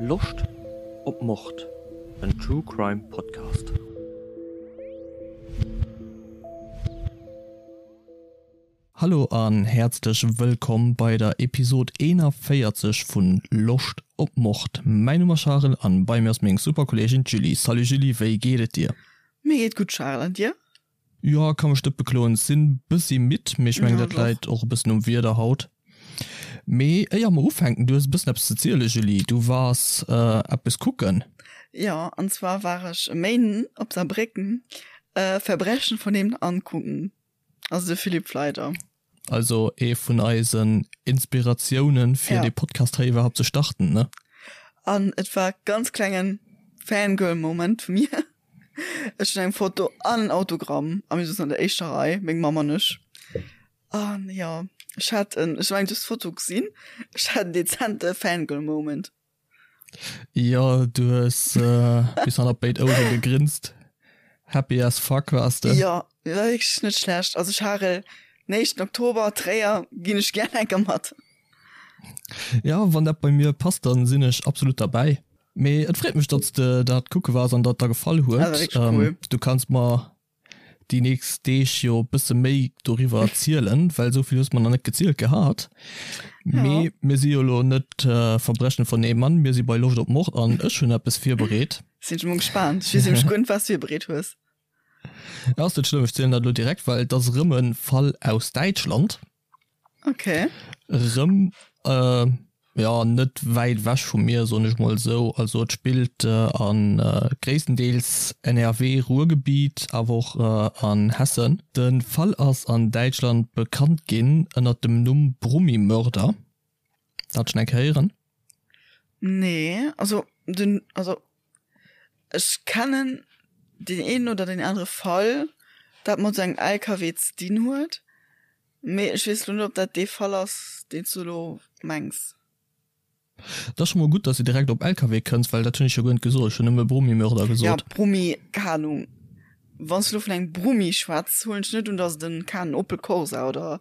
Loscht op Mord? En True Crime Podcast. Hallo an häerzlech wëllkomm bei der Episode 41 vun Loscht op Mord. Mäin Numm ass Charel an bei mir ass meng super Kolleegin d'Julie. Salut Julie, wéi geet et dir? Mir geet gutt Charel, an dir? Jo, ka mech net bekloen. Sinn bëssi midd, mee ech mengen dat läit och e bëssen um Wieder haut. Mee éier mer ufänken, du hues e bëssen eppes ze zielen Julie, du waars eppes kucken. Jo, an zwar war ech e Méinden op Saarbrécken Verbrechen von nebenan kucken, also de Philipp Fleider. Also ee vun eisen Inspiratiounen fir dee Podcast hei iwwerhaapt ze starten, ne? An et war ganz klengen Fangirl Moment vu mir. Ech hunn eng Foto an en Autogramm a mir souzen an der éischter Rei, meng Mamm an ech. An jo, ech hat en, ech mengen du hues d'Foto gesinn, ech hat en dezente Fangirl Moment. Jo, du hues bis hannert béid Ouere gegrinst. Happy as fuck waars de. Jo, war wierklech net schlecht. Also Charel, den éischten Oktober, Tréier, ginn ech gär enker mat. Jo, wann dat bei mir passt, dann sinn ech absolut derbäi. Mee et freet mech, datt s de dat kucke waars an datt der gefall huet. Dat war wierklech cool. Du kanns mer déi nächst Deeg jo e bësse méi doriwwer erzielen, well esou vill hues mer nach net gezielt gehat. Mee mir si jo elo net Verbrechen von nebenan, mir si bei Loscht op Mord an ech hunn eppes virbereet. Sinn ech emol gespaant. Ech weess nämlech guer net, wat s du virbereet hues. Ass net schlëmm, ech zielen dat elo direkt, well et ass erëm e Fall aus Däitschland. Okay. Rëm, jo, net wäit ewech vu mir, soen ech mol esou. Also et spillt a gréisstendeels NRW, Ruhrgebiet, awer och an Hessen. De Fall ass an Däitschland bekannt ginn ënnert dem Numm Brummimörder. Dat schonn eng Kéier héieren? Nee, also den, also ech kennen deen een oder deen anere Fall, dat mat esou engem LKW ze dinn huet. Mee ech weess lo net, ob dat dee Fall ass, deen s du elo mengs. Et ass scho mol gutt, dass de direkt op LKW kënns, well dat hunn ech jo guer net gesot. Ech hunn nëmme Brummimörder gesot. Ja, Brummi, keng Ahnung. Wann s du elo vun engem Brummi schwätz, huelen ech net un, dass et en, keng Ahnung, Opel Corsa oder,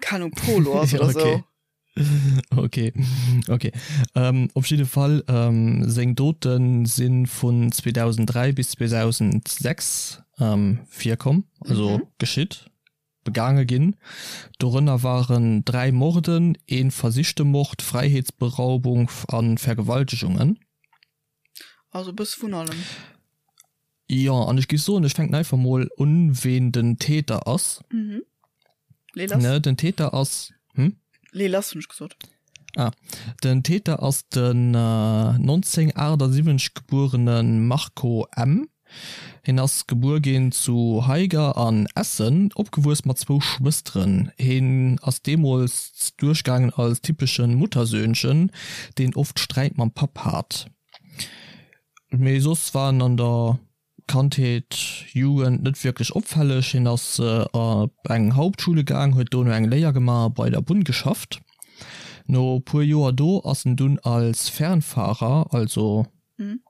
keng Ahnung, Polo ass oder sou. Okay, okay. Op jidde Fall, seng Dote si vun 2003 bis 2006 virkomm, also geschitt. Begaange ginn. Dorënner waren 3 Morden, ee versichte Mord, Fräiheetsberaubung a Vergewaltegungen. Also e bësse vun allem. Jo, an ech géif soen, ech fänken einfach mol un, ween den Täter ass. Mhm. Lee lass. Ne, den Täter ass. Hm? Lee lass, hunn ech gesot. Ah, den Täter ass den 1978 gebuerene Marco M. Hien ass gebuer ginn zu Haiger an Essen, opgewuess mat zwou Schwësteren. Hien ass deemools duerchgaangen als typesche Muttersöhnchen, deen oft Sträit mam Papp hat. Mee soss war en an der Kandheet, Jugend net wierklech opfälleg. Hien ass op eng Hauptschule gaang, huet dono eng Léier gemaach a bei der Bunn geschafft. No puer Joer do ass en dunn als Fernfahrer, also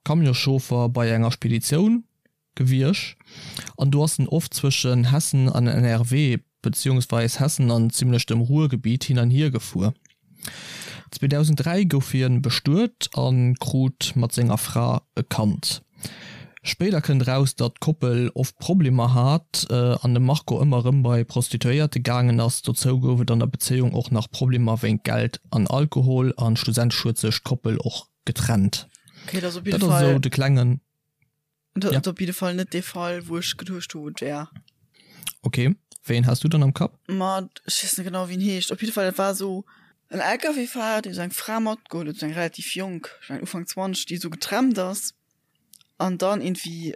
Camionschauffer bei enger Speditioun gewiesch an do ass en oft zwëschen Hessen an NRW beziehungsweis Hessen an zimlech dem Ruhrgebiet hin an hier gefuer. 2003 gouf hien bestuet a krut mat senger Fra e Kand. Spéider kënnt eraus, datt d'Koppel oft Problemer hat an de Marco ëmmer erëm bei Prostituéierte gaangen ass. Dozou gouf et an der Bezéiung och nach Problemer wéint Geld an Alkohol an schlussendlech huet sech d'Koppel och getrennt. Okay, dat ass op jidde Dat ass Fall esou de klengen. Dat ass op jidde Fall net dee Fall, wou ech geduecht hu, et wär. Okay, wéi een has du dann am Kapp? Ma ech weess net genau, wéi en heescht. Op jidde Fall, dat war esou en LKW-Fahrer, dee sou eng Fra matgeholl huet, sou eng relativ jonk, ech mengen Ufank 20, déi esou getrennt ass an dann iergendwéi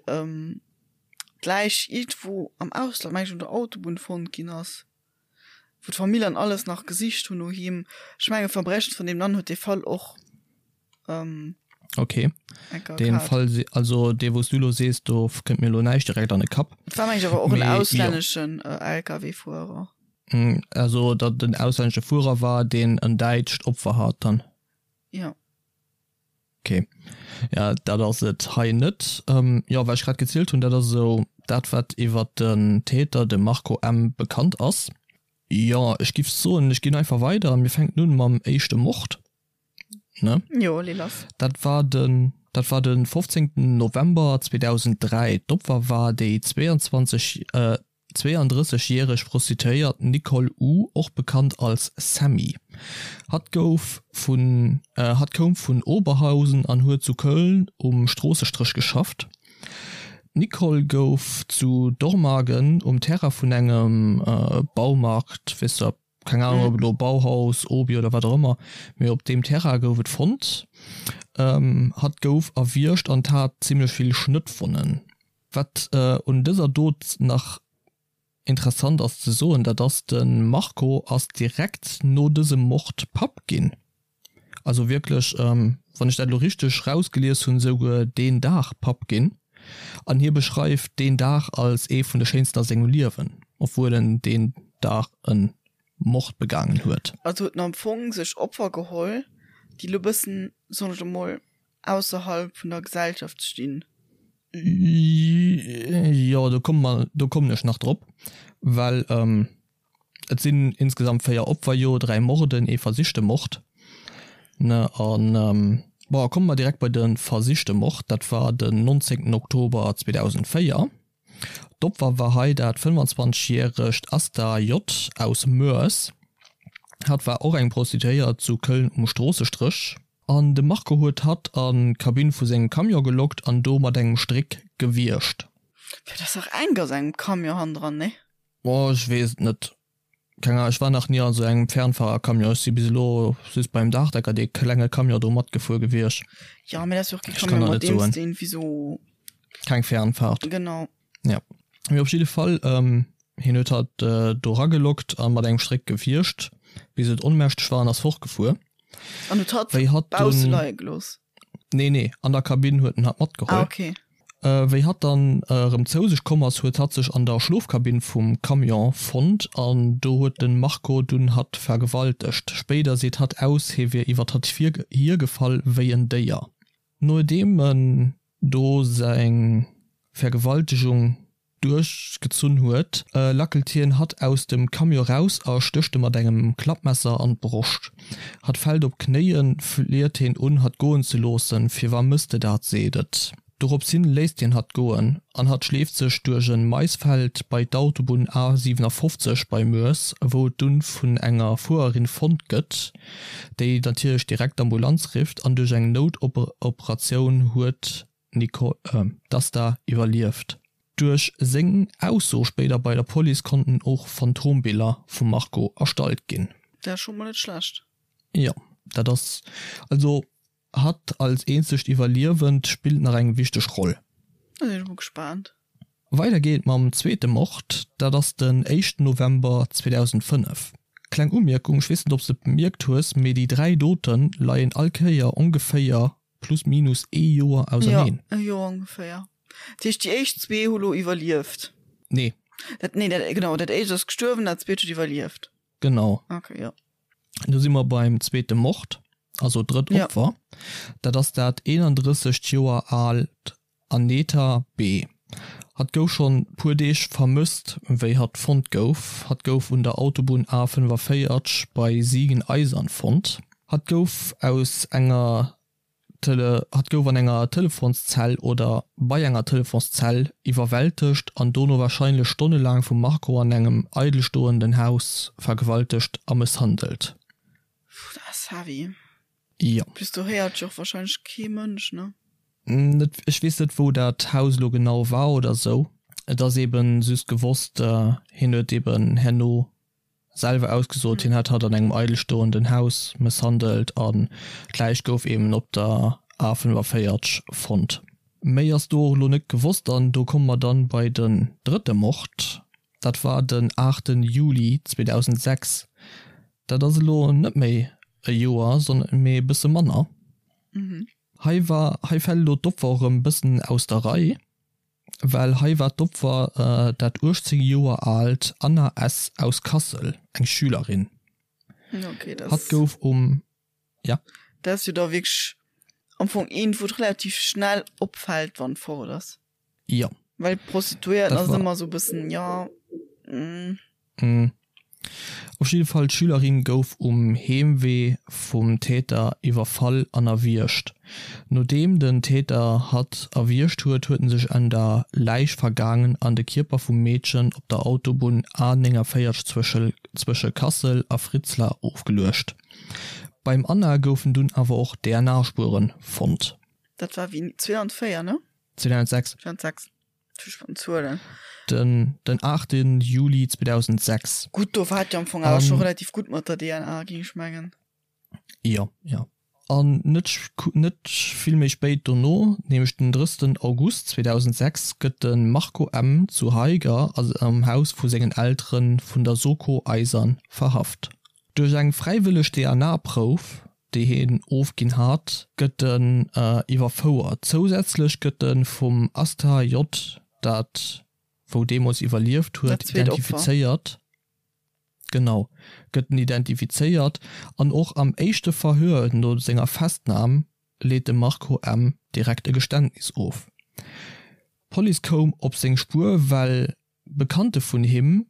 d'Läich iergendwou am Ausland, meng ech, un der Autobunn fonnt ginn ass. wou d'Famill an alles nach gesicht hunn no him. Ech menge Verbrechen von nebenan huet dee Fall och ähm, Okay. Den Fall also dee wous du lo sees, do kënnt mir lo näischt direkt an de Kapp. Et war meng ech awer och en auslänneschen äh, LKW-Fuerer. Mm, also datt en auslännesche Fuerer war, deen en däitscht Opfer hat dann. Ja. Ok, ja dat ass et hei net. Jo, wat ech grad gezielt hunn, dat ass esou dat wat iwwert den Täter, de Marco M. Bekannt ass. Jo, ech giff soen, ech ginn einfach weider. Mir fänken un mam éischte Mord. Ne? Jo, lee lass. Dat war den, dat war de 15. November 2003. D'Opfer war déi 22, äh, 32 järeg Prostituéiert Nicole U. och bekannt als Sammy. Hatt gouf vun, äh, hatt koum vun Oberhausen an huet zu Köln um Stroossestréch geschafft. D'Nicole gouf zu Dormagen um Terrain vun engem Baumarkt, weess de, keng Ahnung ob elo Bauhaus, Obi oder wat och ëmmer, mee op deem Terrain gouf et fonnt. Hatt gouf erwiergt an hat zimmlech vill Schnëttwonnen. Wat un dëser Dot nach interessant ass ze soen, dat ass, de Marco ass direkt no dësem Mord Papp ginn. Also wierklech, wann ech dat elo richteg rausgelies hunn, esouguer deen Dag Papp ginn. An hie beschreift deen Dag als ee vun de schéinsten a sengem Liewen, obwuel en deen Dag e Mord begaangen huet. Also huet en am Fong sech Opfer geholl, déi elo bëssen, soen ech elo mol, ausserhalb vun der Gesellschaft stinn. Jo, do komme mer, do kommen ech nach drop, well et sinn insgesamt 4 Opfer, jo, 3 Morden, ee versichte Mord, ne, an bon, komme mer direkt bei de versichte Mord, dat war den 19 Oktober 2004. D'Opfer war hei dat 25 järegt Asta J. Aus Moers. Hatt war och eng Prostituéiert zu Köln um Stroossestréch. An de Marco huet hatt an d'Kabinn vu sengem Camion gelockt an do mat engem Stréck gewiergt. Fir dat ass dach enk a sengem Camion hannendran, nee? Oh, ech weess et net. Keng Ahnung, ech war nach ni an esou engem Fernfahrercamion. Ech si bis elo just beim Daachdecker dee klenge Camion do matgefuer gewiescht. Jo, mee dat ass jo och kee Camion, mat deem s de irgendwie sou. Keng Fernfahrt. Genau. Jo. Mee op jidde Fall, hien huet hatt do ragelockt a mat engem Stréck gewiergt, bis et onmächteg war an ass fortgefuer. An huet hatt Wéi hatt bausse leie gelooss? Nee, nee, an der Kabinn huet en hatt matgeholl. Ah, okay. Wéi hatt dann erëm zou sech komm ass, huet hatt sech an der Schlofkabinn vum Camion fonnt an do huet de Marco dunn hatt vergewaltegt. Spéider seet hatt aus, hie wier iwwer hatt hiergefall wéi en Déier. Nodeem en do seng Vergewaltegung duerchgezunn huet, lackelt hien hatt aus dem Camion raus a stécht e mat engem Klappmesser an d'Broscht. Hatt fält op d'Knéien, fliet hien un, hatt goen ze loossen. Firwar mëss de dat? seet et. Dorops hin léisst hien hatt goen an hatt schleeft sech duerch e Maisfeld bei d'Autobunn A 57 bei Moers, wou et dunn vun enger Fuererin fonnt gëtt, déi natierlech direkt d'Ambulanz rifft an duerch eng Noutoperatioun huet d'Nicole, d'Asta iwwerlieft. Duerch seng Ausso spéider bei der Police konnten och Phantombiller vum Marco erstallt ginn. Dat ass scho mol net schlecht. Jo, dat ass also hatt als eenzegt Iwwerliewend spillt nach eng wichteg Roll. Da sinn ech mol gespaant. Weider geet et mam zweete Mord, dat ass den éischten November 2005. Kleng Umierkung, ech weess net ob s de et bemierkt hues, mee déi 3 Dote leien all Kéier ongeféier plus minus ee Joer auserneen. Jo, e Joer ongeféier. Dat heescht déi éischt zwee hu lo iwwerlieft? Nee. Dat, nee, dat, genau, dat éischt ass gestuerwen, dat zweet huet iwwerlieft. Genau. Okay, jo. Do si mer beim zweete Mord, also drëtt Opfer. Ja. Dat ass dat 31 Joer aalt Aneta B. Hatt gouf schonn puer Deeg vermësst, wéi hatt fonnt gouf. Hatt gouf un der Autobunn A45 bei Siegen-Eisern fonnt. Hatt gouf aus enger Tele hatt gouf an enger Telefonszell oder bei enger Telefonszell iwwerwältegt an dono warscheinlech stonnelaang vum Marco an engem eidelstoenden Haus vergewaltegt a mësshandelt. Puh, dat ass heavy. Jo. Plus do héiert jo och warscheinlech kee Mënsch, ne? Net, ech weess net wou dat Haus elo genau war oder sou. Et ass eben just gewosst, hien huet eben herno selwer ausgesot, hien hätt hatt an engem eidelstoenden Haus mësshandelt an d'Läich gouf eben op der A45 fonnt. Méi ass do och elo net gewosst an do komme mer dann bei den drëtte Mord, dat war den 8 Juli 2006. Dat ass elo net méi e Joer, sondern mee e bësse manner. Hei war, hei fält elo d'Opfer och erëm bëssen aus der Rei. Well hei war d'Opfer dat 18 Joer aalt Anna S. aus Kassel, eng Schülerin. Okay, das Hatt gouf um, ja? Dat ass jo da wierklech am Fong eent, wou et relativ schnell opfält, wann et fort ass. Jo. Well d'Prostituéierten ass ëmmer esou e bëssen, jo, mm. Op jidde Fall, d'Schülerin gouf um Heemwee vum Täter iwwerfall an erwiergt. Nodeem den Täter hatt erwiergt huet, huet en sech un der Läich vergaangen an de Kierper vum Meedchen op der Autobunn A 49 zwësche Kassel a Fritzlar ofgeluecht. Beim Anna goufen dunn awer och DNA-Spuere fonnt. Dat war wéini? 2004, ne? 2006. 2006. Zuelen. Den, den 8. Juli 2006. Gutt, do war et jo am Fong awer scho relativ gutt mat der DNA, géing ech mengen. Jo, jo. An net, net vill méi spéit dono, nämlech den 30. August 2006, gëtt de Marco M. zu Haiger am Haus vu sengen Eltere vun der Soko Eisern verhaft. Duerch eng fräiwëlleg DNA-Prouf déi hien ofginn hat, gëtt en iwwerfouert. Zousätzlech gëtt e vum Asta J. dat wou deemools iwwerlieft huet, identifizéiert. Genau, gëtt en identifizéiert an och am éischte Verhör no senger Festnam leet de Marco M. direkt e Geständnis of. D'Police koum op seng Spuer, well Bekannte vun him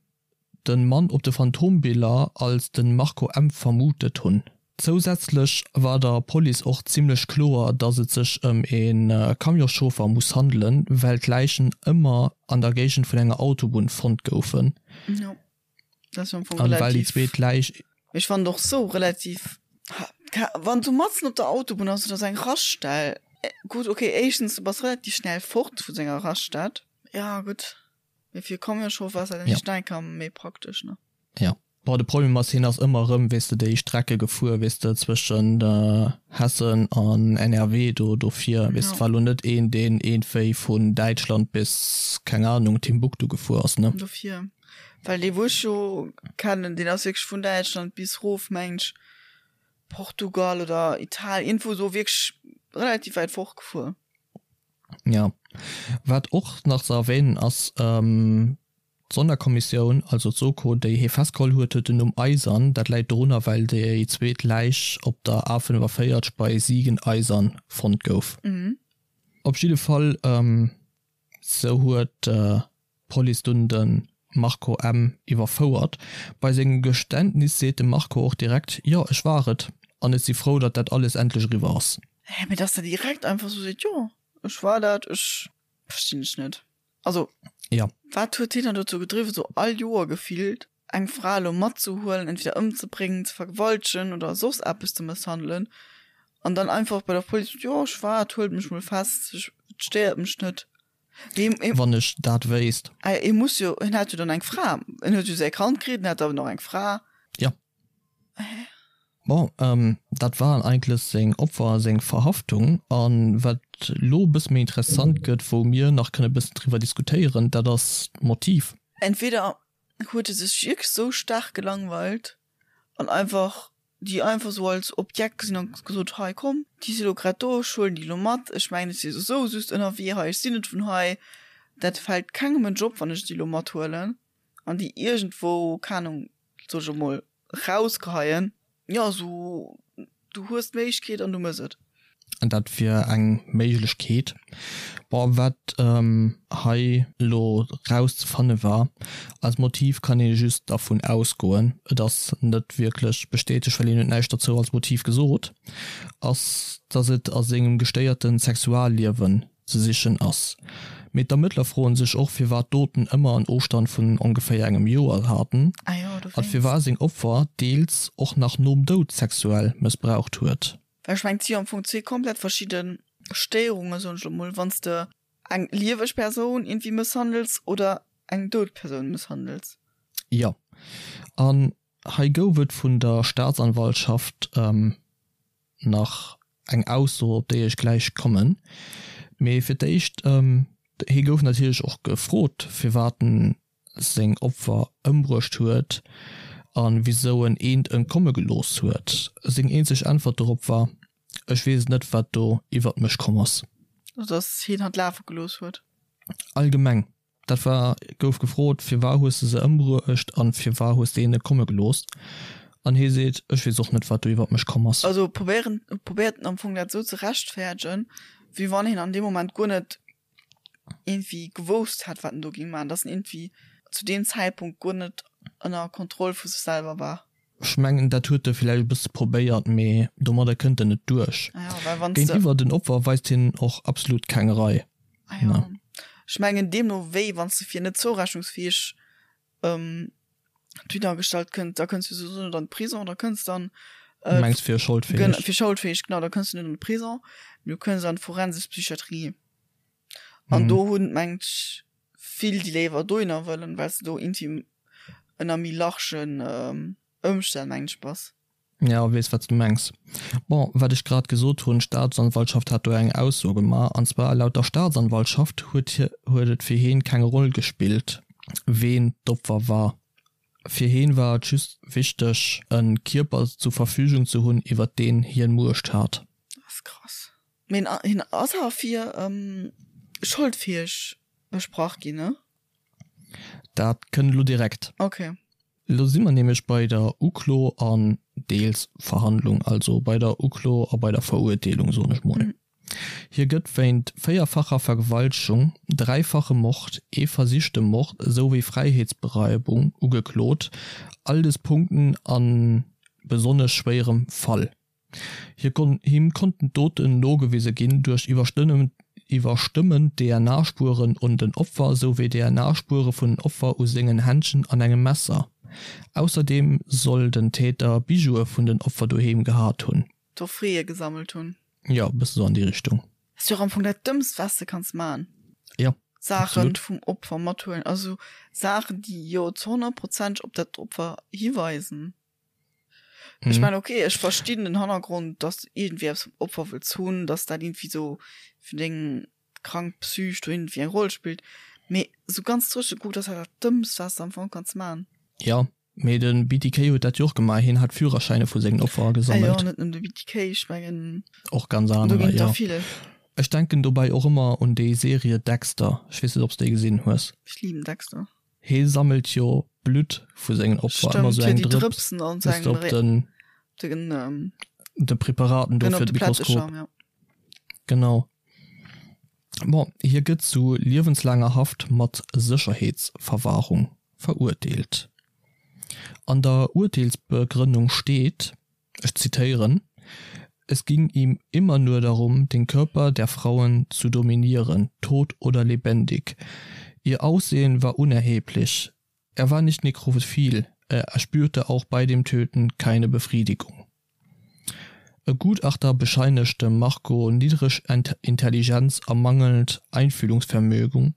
den Mann op de Phantombiller als den Marco M. vermutet hunn. Zousätzlech war der Police och zimmlech kloer, dass et sech ëm e Camionschauffer muss handelen, well d'Läichen ëmmer an der Géigend vun enger Autobunn fonnt goufen. Jo, dat ass jo am Fong relativ. An well déi zweet Läich. Mee ech fannen et och sou relativ, wann du matzen op der Autobunn ass oder sou eng Raststell, gutt ok, éischtens du bass relativ schnell fort vu senger Raststatt. Ja gutt, mee fir Camionschauffer ass dat ja. enker méi praktesch ne. Ja. Bon, de Problem ass, hien ass ëmmer erëm, weess de, déi Strecke gefuer, weess de, zwëschen Hessen an NRW do dofir, weess de, war elo net een, deen iergendwéi vun Däitschland bis, keng Ahnung, Timbuktu gefuer ass, ne. Dofir, well dee wou ech jo kennen, deen ass wierklech vun Däitschland bis rof, mengen ech, Portugal oder Italien, iergendwou esou wierklech relativ wäit fort gefuer. Jo. Wat och nach ze erwähnen ass, d'Sonderkommissioun, also d'Soko, déi hie festgeholl huet, huet den Numm Eisern. Dat läit dorunner, well déi zweet Läich op der A 45 bei Siegen-Eisern fonnt gouf. Op jidde Fall, sou huet d'Police dunn de Marco M. iwwerfouert. Bei sengem Geständnis seet de Marco och direkt, Jo, ech war et an ech si frou, datt dat alles endlech eriwwer ass. Hä, mee dass der direkt einfach sou seet, Jo, ech war dat, ech. Verstinn ech net. Also, Ja. wat huet hien dann dozou gedriwwen, sou all Joer gefillt eng Fra elo matzehuelen, entweder ëmzebréngen, ze vergewaltegen oder soss eppes ze mësshandelen an dann einfach bei der Police, Jo, ech war et, huelt mech mol fest, ech, et stéiert mech net. Wann ech dat wéisst. Hie muss jo, hien hat jo dann eng Fra, en huet jo säi Kand kritt, en hat awer nach eng Fra. Jo. Bon, dat waren eigentlech seng Opfer a seng Verhaftung. A wat elo e bësse méi interessant gëtt, wou mir nach kënne e bëssen driwwer diskutéieren, dat ass d'Motiv. Entweder huet e sech wierklech sou staark gelangweilt an einfach déi einfach sou als Objekt gesinn an gesot, hei komm, déi si lo grad do, ech huelen déi lo mat, ech mengen ech si souwisou just ënnerwee hei, ech sinn net vun hei, dat fält kengem en Job wann ech déi lo mathuelen an déi iergendwou, keng Ahnung, soe ech emol, rausgeheien. Jo, sou du hues d'Méiglechkeet an du mëss et. Dat wier eng Méiglechkeet. Bon, wat hei elo rauszefanne war als Motiv, kann ee just dervun ausgoen, et ass net wierklech bestätegt, well hien huet näischt derzou als Motiv gesot, ass, datt et a sengem gestéierte Sexualliewen ze sichen ass. Mee d'Ermëttler froen sech och, firwat d'Doten ëmmer en Ofstand vun ongeféier engem Joer haten a firwat seng Opfer deels och nach nom Doud sexuell mëssbraucht huet. Well ech mengen, et si jo am Fong zwee komplett verschidde Stéierungen, soen ech elo mol, wann s de eng lieweg Persoun iergendwéi mësshandels oder eng dout Persoun mësshandels. Jo, an hei gouf et vun der Staatsanwaltschaft nach eng Ausso, op déi ech gläich kommen. Mee fir d'éischt, hie gouf natierlech och gefrot, firwat en seng Opfer ëmbruecht huet a wisou en eent entkomme gelooss huet. Seng eenzeg Äntwert dorop war, Ech weess et net, wat do iwwert mech komm ass. Also dass hien hatt lafe gelooss huet. Allgemeng, dat war, gouf gefrot, Firwar hues de se ëmbruecht a firwar hues de een entkomme gelooss? An hie seet, Ech weess och net, wat do iwwert mech komm ass. Also probéieren, probéiert en am Fong dat esou ze rechtfäerdegen, wéi wann hien an deem Moment guer net iergendwéi gewousst hätt, wat en do géing maachen, dass en iergendwéi zu deem Zäitpunkt guer net. Ënner Kontroll vu sech selwer war. Ech mengen, dat huet e villäicht e bësse probéiert, mee domadder kënnt en net duerch. Ah ja, well wann s de. Géintiwwer den Opfer weist hien och absolut keng Rei. Ah ja. Ech mengen, deemno wéi, wann s de fir net zourechnungsfäeg dohinner gestallt kënns, da kënns du souwisou net an de Prison, da kënns dann. Du mengs fir scholdfäeg? Fir scholdfäeg, genau, da kënns du net an de Prison, mee du kënns an d'forensesch Psychiatrie. An do hunn, mengt ech, vill déi léiwer dohinner wëllen, well s de do intim ënner méi largen Ëmstänn, mengen ech, bass. Jo, weess wat s de mengs. Bon, wat ech grad gesot hunn, d'Staatsanwaltschaft hat do eng Ausso gemaach, an zwar laut der Staatsanwaltschaft huet huet et fir heen keng Roll gespillt, ween d'Opfer war. Fir heen war et just wichteg e Kierper zu Verfügung ze hunn, iwwert deen hien Muecht hat. Dat ass krass. Mee hien ass awer fir scholdfäeg besprach ginn, ne? Dat kënnt elo direkt. Ok. Elo si mer nämlech bei der Uklo an deels Verhandlung, also bei der Uklo a bei der Verurteelung, soen ech mol. Hie gëtt wéint véierfacher Vergewaltegung, dräifache Mord, ee versichte Mord esouwéi Fräiheetsberaubung ugeklot, all des Punkten a besonnesch schwéierem Fall. Him konnten d'Doten nogewise ginn duerch iwwerstëmmend DNA-Spueren un den Opfer souwéi DNA-Spuere vun den Opfer u sengen Händschen an engem Messer. Ausserdeem soll den Täter Bijoue vun den Opfer doheem gehat hunn. Trophäe gesammelt hunn. Jo, e bësse sou an déi Richtung. Ass jo och am Fong dat Dëmmst, wat s de kanns man. Jo, Saachen absolut. vum Opfer mathuelen, also Saachen, déi jo zu 100 Prozent op dat Opfer hiweisen. Ech mengen, okay, ech verstinn den Hannergrond, dass du iergendwéi eppes vum Opfer wëlls hunn, dass dat iergendwéi sou fir deng krank Psych do iergendwéi eng Roll spillt, mee sou ganz dréche gekuckt ass dat dat Dëmmst, wat s de am Fong kanns man. Jo, mee de BTK huet dat jo och gemaach, hien hat Führerschäine vu sengen Opfer agesammelt. Ah jo, net nëmmen de BTK, ech mengen, Och ganz do anerer, ginn et jo. der vill. Ech denken dobäi och ëmmer un déi Serie Dexter, ech weess net, ob s de déi gesinn hues. Ech liben Dexter. Hee sammelt jo Blutt vu sengen Opfer, ëmmer sou eng Drëps, bis de op den de Preparaten do fir de Mikroskop. Genau. Bon, hie gëtt zu liewenslaanger Haft mat Sécherheetsverwahrung verurteelt. An der Urteelsbegrënnung steet, ech zitéieren, Es ging ihm immer nur darum, den Körper der Frauen zu dominieren, tot oder lebendig. Ihr Aussehen war unerheblich. Er war nicht nekrophil, er erspürte auch bei dem Töten keine Befriedigung. E Gutachter bescheinigt dem Marco niedreg Intelligenz a mangelnd Einfühlungsvermögen,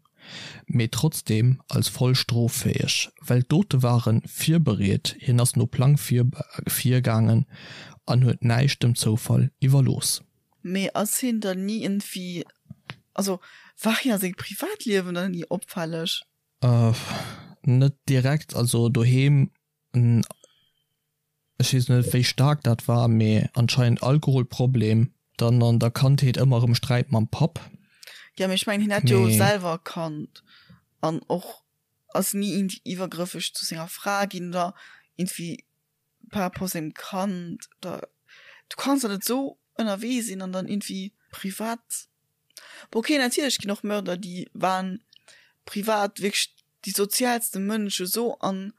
mee trotzdem als voll stroffäeg, well d'Dote ware virbereet, hien ass no Plang virgaangen an huet näischt dem Zoufall iwwerlooss. Mee ass hien dann ni iergendwéi, also war hien a sengem Privatliewen dann ni opfälleg? Net direkt, also doheem Ech weess net wéi staark dat war, mee anscheinend Alkoholproblem, dann an der Kandheet ëmmer erëm Sträit mam Papp. Jo, mee ech mengen hien hätt jo selwer e Kand an och ass ni iergendwéi iwwergrëffeg zu senger Fra ginn oder iergendwéi par rapport sengem Kand oder du kanns der net esou ënnerwee sinn an dann iergendwéi privat Bon ok, natierlech ginn och Mörder déi waren privat wierklech déi sozialste Mënsche sou an.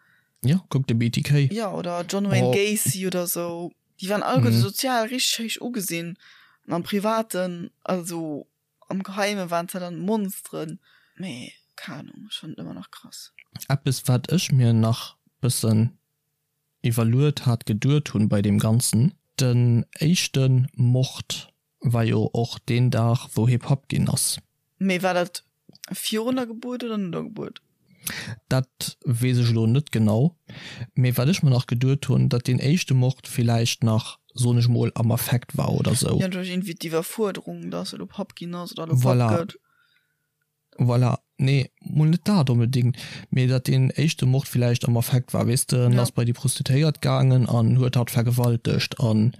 Jo, kuck de BTK. Jo, oder John Wayne Gacy oder sou, déi waren alleguerte sozial richteg héich ugesinn an am Privaten, also am Geheime waren se dann Monsteren. Mee keng Ahnung, ech fannen et ëmmer nach krass. Eppes wat ech mir nach bëssen iwwerluet hat, geduet hunn bei deem Ganzen, den éischte Mord war jo och deen Dag wou hie Papp ginn ass. Mee war dat virun der Gebuert oder no der Gebuert? Dat weess ech elo net genau. Mee wat ech mer nach geduet hunn, datt deen éischte Mord villäicht nach, soen ech mol, am Affekt war oder sou. Jo, duerch iergendwéi d'Iwwerfuerderung, datt e lo Papp ginn ass oder elo Papp gëtt. Voilà, nee, mol net dat onbedéngt, mee datt deen éischte Mord villäicht am Affekt war, weess de, en ass bei déi Prostituéiert gaangen an huet hatt vergewaltegt an,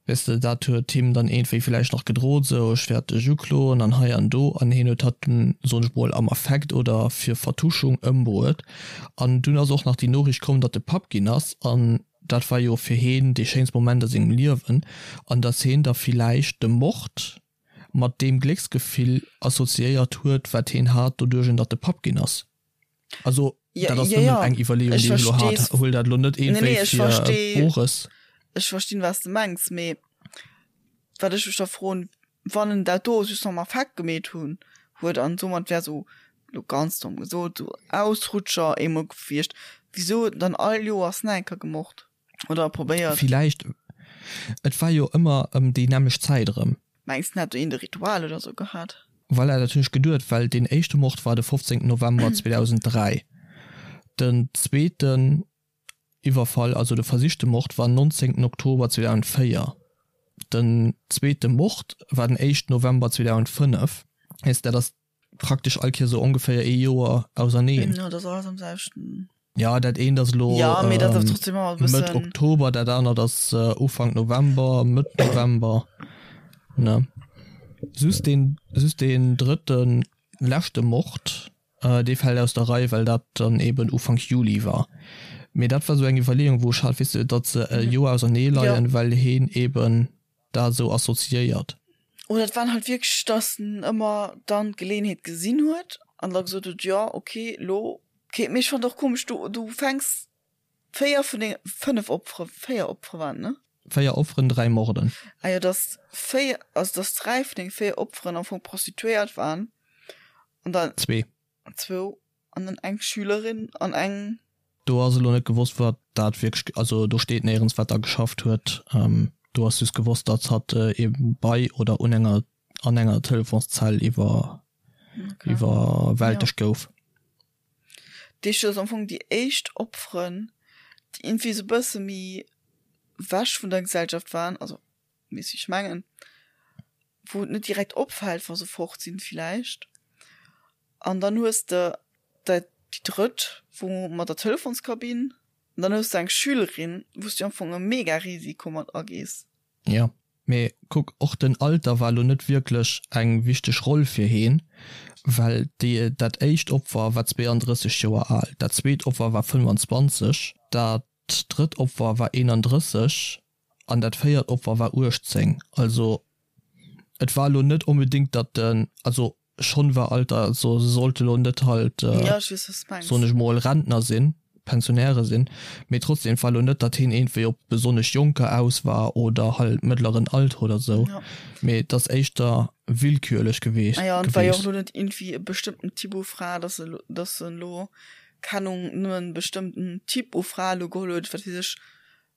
weess de, dat huet him dann iergendwéi villäicht nach gedrot, sou, ech wäert dech ukloen an hei an do, an hien huet hatt dunn, soen ech mol, am Affekt oder fir Vertuschung ëmbruet. An dunn ass och nach déi Noriicht komm, datt e Papp ginn ass an dat war jo fir heen dee schéinste Moment a sengem Liewen an datt heen da villäicht de Mord mat deem Glécksgefill assoziéiert huet, wat heen hat, doduerch datt e Papp ginn ass. Also. Ja, dat ass ja, nëmmen ja. eng Iwwerleeung, Ech déi ech elo hat. verstees. Huel dat elo net Nee, iergendwéi nee, ech fir versteh, Bores. ech verstinn, wat s de mengs, mee wat ech mech da froen, wann en dat do just am Affekt gemeet hunn huet an domat wär sou, lo ganz domm gesot, sou Ausrutscher eemol gewiescht, wisou huet en dann all Joers nach eng Kéier gemort oder probéiert? Villäicht, et war jo ëmmer ëm déi nämmlecht Zäit erëm. Mengs de, en hätt do eent e Ritual oder sou gehat? Voilà, dat hunn ech geduet, well deen éischte Mord war de 15 November 2003, den zweeten Iwwerfall, also de versichte Mord, war 19 Oktober 2004, den zweete Mord war den éischten November 2005. Heesst, dat ass praktesch all Kéier sou ongeféier ee Joer auserneen. Jo, dat ass alles am selwechten. Jo, dat eent ass elo Ja, mee dat ass trotzdem ëmmer e Mëtt bëssen. Oktober, dat anert ass Ufank November, Mëtt November, ne? Just deen, just deen drëtten, leschte Mord, dee fält aus der Rei, well dat dann eben Ufank Juli war. Mee dat war sou eng Iwwerleeung, wou ech hat, weess de, datt se e Joer ausernee leien, well heen eben dat esou assoziéiert. Oder et waren halt wierklech, datt en ëmmer dann d'Geleeënheet gesinn huet an da gesot huet, jo ok, lo. Ok, mee ech fannen et och komesch, du du fänks 4 vun denge 5 Opfere, 4 Opfere waren et, ne? 4 Opferen, 3 Morden. Ah jo, datt 4, also datt 3 vun denge 4 Opferen am Fong Prostituéiert waren an dann. Zwee. Zwou an dann eng Schülerin an eng. Do ass elo net gewosst wat dat wierklech, also do steet néierens wat da geschafft huet. Do ass just gewosst datt hatt eben bei oder un enger an enger Telefonszell iwwer iwwerwältegt gouf. Déi ass am Fong déi éischt Opferen déi iergendwéi esou bësse méi wech vun der Gesellschaft waren, also weess wéi ech mengen, wou et net direkt opfält wa se fort sinn villäicht. An dann hues de dat déi drëtt wou mat der Telefonskabinn an dann hues de eng Schülerin wou s du am Fong e mega Risiko mat agees. Jo, mee kuck, och den Alter war lo net wierklech eng wichteg Roll fir heen, well déi dat éischt Opfer war 32 Joer al, dat zweet Opfer war 25, dat drëtt Opfer war 31 an dat véiert Opfer war 18. Also et war elo net onbedéngt, datt den, also schonn war Alter, also se sollte elo net halt, Ja, ech weess, wat s de mengs. soen ech mol, Rentner sinn, Pensionäre sinn, mee trotzdem, et war elo net, datt hien iergendwéi op besonnesch Jonker aus war oder halt mëttleren Alter oder sou, Ja. mee et ass éischter willkürlech geweecht. Ah ja, an et war jo och elo net iergendwéi e bestëmmten Typ u Fra, datt se elo, datt en elo, keng Ahnung, nëmmen e bestëmmten Typ u Fra elo geholl huet, wat weess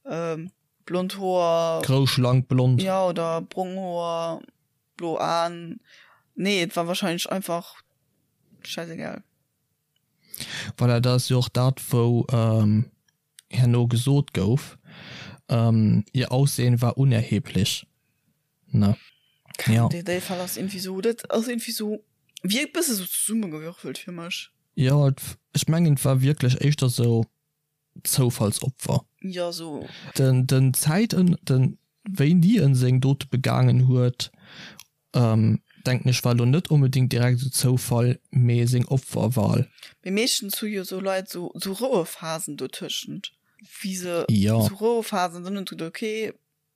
ech, Blond Hoer. Grouss, schlank, blond. Jo, oder brong Hoer, blo Aen. Nee, et war wahrscheinlech einfach schäisegal. Voilà, dat ass jo och dat, wou herno gesot gouf, ihr Aussehen war unerheblich, ne? Jo. Dee Fall ass iergendwéi sou, dat ass iergendwéi sou, wierkt bësse sou zesummegewürfelt fir mech. Jo, ech mengen, et war wierklech éischter sou, Zoufallsopfer. Jo, sou. Den den Zäit den wéini en seng Dote begaangen huet, denken ech war lo net onbedingt direkt esou Zoufall, mee seng Opferwahl. Mee meeschtens hu jo sou Leit sou sou Rouephasen dotëschent, wéi se Jo. sou Rouephasen, dann hunn se geduet, ok,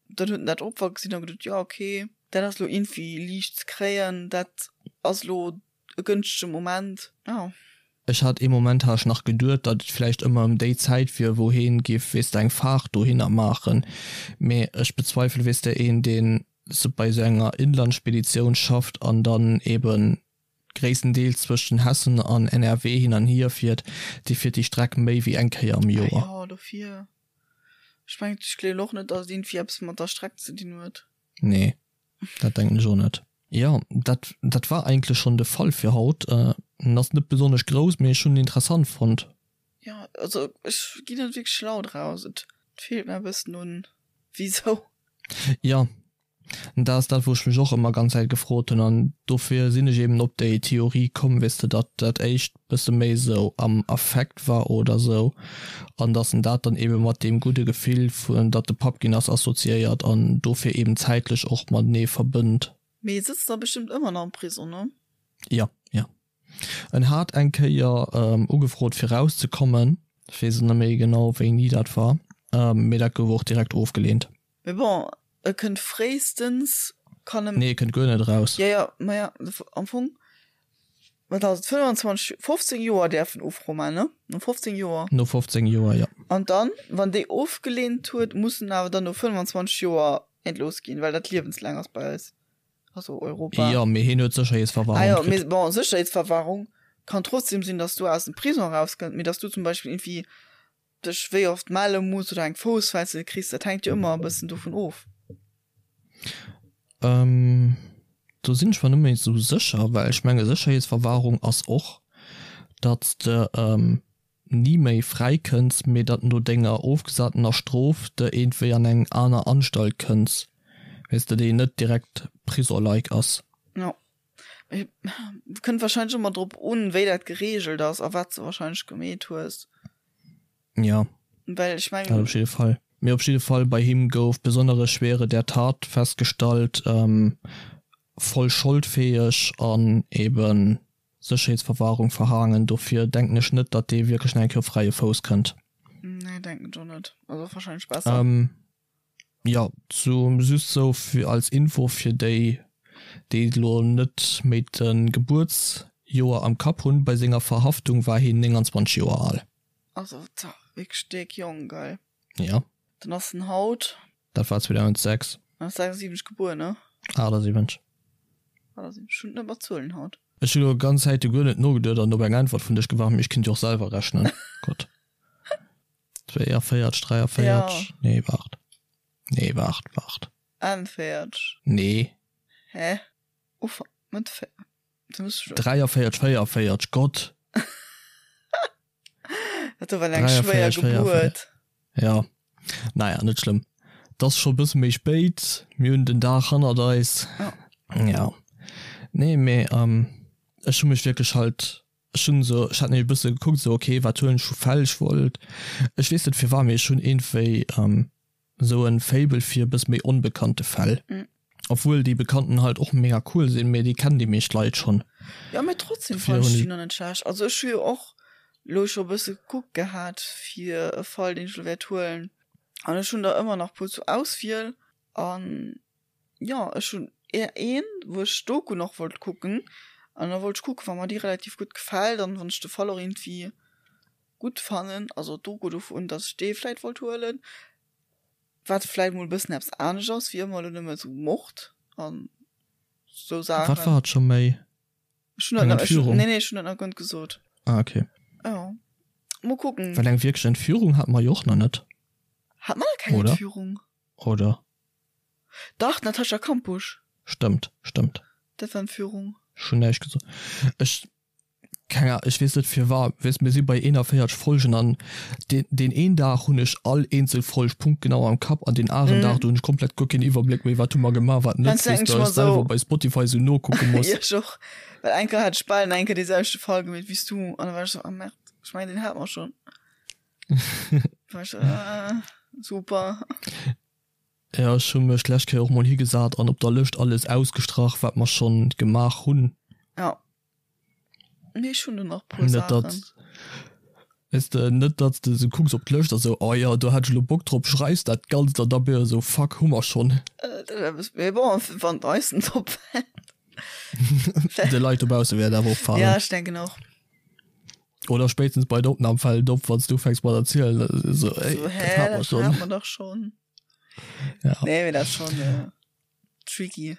dann huet en dat Opfer gesinn a geduet, jo ok, dat ass lo iergendwéi liicht ze kréien, dat ass lo e gënschtege Moment, jo. Ech hat ee Moment hat ech nach geduet, datt et vläicht ëmmer ëm déi Zäit wier, wou heen giff, weess de, eng Faart dohinner maachen, mee ech bezweifele, weess de, een deen se bei esou enger Inlandspeditioun schafft an dann eben gréisstendeels zwëschen Hessen an NRW hin an hier fiert, dee fiert déi Streck méi wéi eng Kéier am Ah Joer. jo, dofir. Ech mengen, ech gleewen och net, datt et iergendwéi eppes mat der Streck ze dinn huet. Nee, dat denken ech och net. Jo, dat dat war eigentlech schonn de Fall fir haut. En ass net besonnesch grouss, mee ech hunn en interessant fonnt. Jo, also ech ginn net wierklech schlau draus. Et feelt mer e bëssen un wisou. Jo, dat ass dat, wou ech mech och ëmmer ganz Zäit gefrot hunn an dofir sinn ech eben op déi Theorie komm, weess de, datt dat éischt bësse méi esou am Affekt war oder esou an datt en dat dann ebe mat deem gudde Gefill vun datt e Papp ginn ass assoziéiert an dofir eben zäitlech och matenee verbënnt. Mee e sëtzt da bestëmmt ëmmer nach am Prison, ne? Jo, jo. En hat eng Kéier ugefrot fir rauszekommen, ech weess et net méi genau wéini dat war, mee dat gouf och direkt ofgeleent. Mee bon, e kënnt fréistens, kann e. Nee, e kënnt guer net eraus. Jo, jo, maja, am Fong. Wat ass et, 25, 15 Joer däerf en Ufro man, ne? No 15 Joer. No 15 Joer, jo. An dann, wann déi ofgeleent huet, muss en awer dann no 25 Joer entlooss ginn, well dat liewenslaang ass bei eis, also Europa. Jo, mee hien huet Sécherheetsverwahrung Ah jo, mee kritt. bon, Sécherheetsverwahrung kann trotzdem sinn, dass du aus dem Prison erauskënnt, mee dass du zum Beispill irgendwie dech wéi oft melle muss oder eng Foussfessel kriss, dat hänkt jo ëmmer e bëssen dovun of. Ähm, do sinn ech mer net méi esou sécher, well ech menge Sécherheetsverwahrung ass och, datt s de ni méi fräi kënns, mee datt no denger ofgesatener Strof de iergendwéi an eng aner Anstalt kënns, weess de, déi net direkt Prison-like ass. Jo, mee kënnt wahrscheinlech ëmmer drop un, wéi dat gereegelt ass a wat s de wahrscheinlech gemeet hues. Ja. Well ech mengen. Dat op jidde Fall. Mee op jidde Fall, bei him gouf besondere Schwere der Tat festgestallt, voll scholdfäeg an eben Sécherheetsverwahrung verhaangen. Dofir denken ech net, datt dee wierklech nach eng Kéier op fräie Fouss kënnt. Nee, denken ech och net. Also wahrscheinlech besser. Jo, zu just sou fir als Info fir déi, déi elo net méi de Gebuertsjoer am Kapp hunn, bei senger Verhaftung war hien 29 Joer al. Also wierklech déck jonk, geil. Jo. Dann ass en haut. Dat war 2006. En ass 76 gebuer, ne? 78. 78, ech hunn et net mat Zuelen haut. Ech hunn elo ganz Zäite guer net nogeduet an op eng Äntwert vun dech gewaart, mee ech kinnt jo och selwer rechnen. Gott. 42, 43, ja. Nee, waart. Nee, waart, waart. 41. Nee. Hä? Uff, Mëtt 43, 44, Gott. Dat do war eng schwéier Gebuert. Ja, naja, net schlëmm. 't ass scho bësse méi spéit, mir hunn den Dag hannert eis. Ja. Ja. Nee, mee ech hu mech wierklech halt Ech hunn esou, ech hat nämlech e bësse gekuckt esou, ok, wat huelen ech vu Fäll? Ech wollt, ech weess net firwat, mee ech hunn iergendwéi esou en Faible fir e bësse méi onbekannte Fäll. Obwuel déi bekannten halt och mega cool sinn, mee déi kennen déi meescht Leit schonn. Jo, mee trotzdem fannen ech déi nach net schlecht. Also ech hu jo och lo scho e bësse gekuckt gehat fir e Fall, deen ech lo wäert huelen, an ech hunn der ëmmer nach puer zur Auswiel an Jo, ech hunn een, wou ech d'Doku nach wollt kucken. An da wollt ech kucken, wa mer déi relativ gutt gefält an wann ech de Fall och iergendwéi gutt fannen, also d'Doku dovun, datt ech dee vläit wollt huelen. Wat vläit mol e bëssen eppes anescht ass wéi ëmmer elo nëmme sou Mord an sou Saachen. Wat war et scho méi? Ech hunn dat Eng Entführung? Nee, nee, ech hunn dat nach guer net gesot. Ah, okay. Jo, mol kucken. Well eng wierklech Entführung hate mer jo och nach net. Hate mer nach keng Entführung? Oder? Dach, d'Natascha Kampusch. Stëmmt, stëmmt. Dat war Entführung. Ech hunn näischt gesot. Ech, keng Ahnung, ech weess net firwat, weess, mir si bei 41 Folgen an deen, deen een Dag hunn ech all eenzel Folg punktgenau am Kapp an deen aneren Dag, do hunn ech komplett guer keen Iwwerbléck méi, wat hu mer gemaach, wat net, Heiansdo weess denken de, ech mer ech selwer esou. bei Spotify esou nokucke muss. Jo, ech och. Well eng Kéier hat ech bal eng Kéier dee selwechte Fall gemeet wéi s du an da war ech esou, ah merde, ech mengen deen hate mer schonn. War ech esou, ah, super. Jo, ech hu mech d'lescht Kéier och mol higesat an op der Lëscht alles ausgestrach, wat mer schonn gemaach hunn. Jo. Mee ech hunn do nach e puer Net datt, Saachen. weess de, net datt s de esou kucks op d'Lëscht a sou, oh jo, do hat ech elo Bock drop, schreifs dat Ganzt an da bass de esou, fuck, hu mer schonn. Dat wär e bësse, mee bon, wann et eis net opfält. De Leit dobausse wäert et awer opfalen. Ja, ech denken och. Oder spéitstens bei der Opnam fält et op, wann s du ufänks mat erzielen, esou, ey, So, dat hä, hat mer dat schonn. hat mer dach schonn. Ja. Nee, mee dat ass schonn tricky.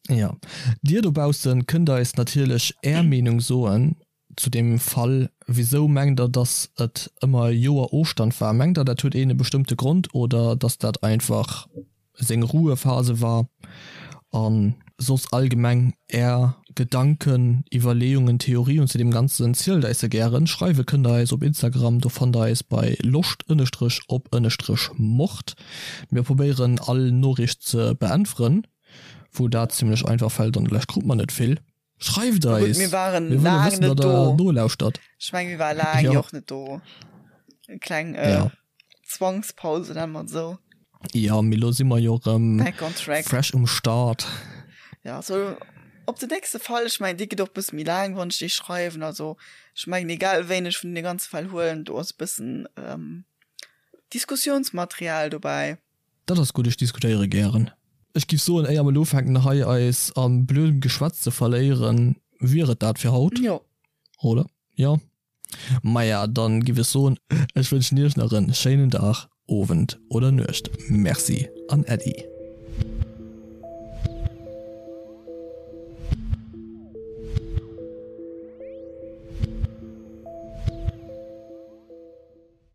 Ja. Dir dobaussen kënnt eis natierlech är Meenung soen zu deem Fall. Wisou mengt der, dass et ëmmer e Joer Ofstand war? Mengt der, dat huet een e bestëmmte Grond oder dass dat einfach seng Ruhephase war an soss allgemeng är Gedanken, Iwwerleeungen, Theorien zu deem Ganzen, zielt eis se gären. Schreiwe kënnt der eis op Instagram, do fannt der eis bei loscht ënnestrech op ënnestrech mord. Mir probéieren all Noriicht ze beäntweren, wou dat zimlech einfach fält, an der Lescht krut mer net vill. Schreift Na gutt, eis! mir waren Mir wëlle laang wëssen, net datt der do. nolauschtert. Ech meng, mir ware laang Jo. jo och net do. Eng kleng äh, Ja. Zwangspause, nenne mer et esou. Jo, mee lo si mer jo erëm Back on track. fresh um Start. Ja, so op den nächste Fall, ech mengen, dee gëtt och e bësse méi laang, wann ech dee schreiwen. Also ech mengen, egal wéin ech vun deene ganze Fäll huelen, do ass e bëssen ähm, Diskussionsmaterial dobäi. Dat ass gutt, ech diskutéiere gären. Ech giff soen, éier mer elo ufänken hei eis a blödem Geschwätz ze verléieren, Wier et dat fir haut? Jo. Oder? Jo. Maja, dann giff ech soen, ech wënschen iech nach en schéinen Dag, Owend oder Nuecht. Merci an Äddi.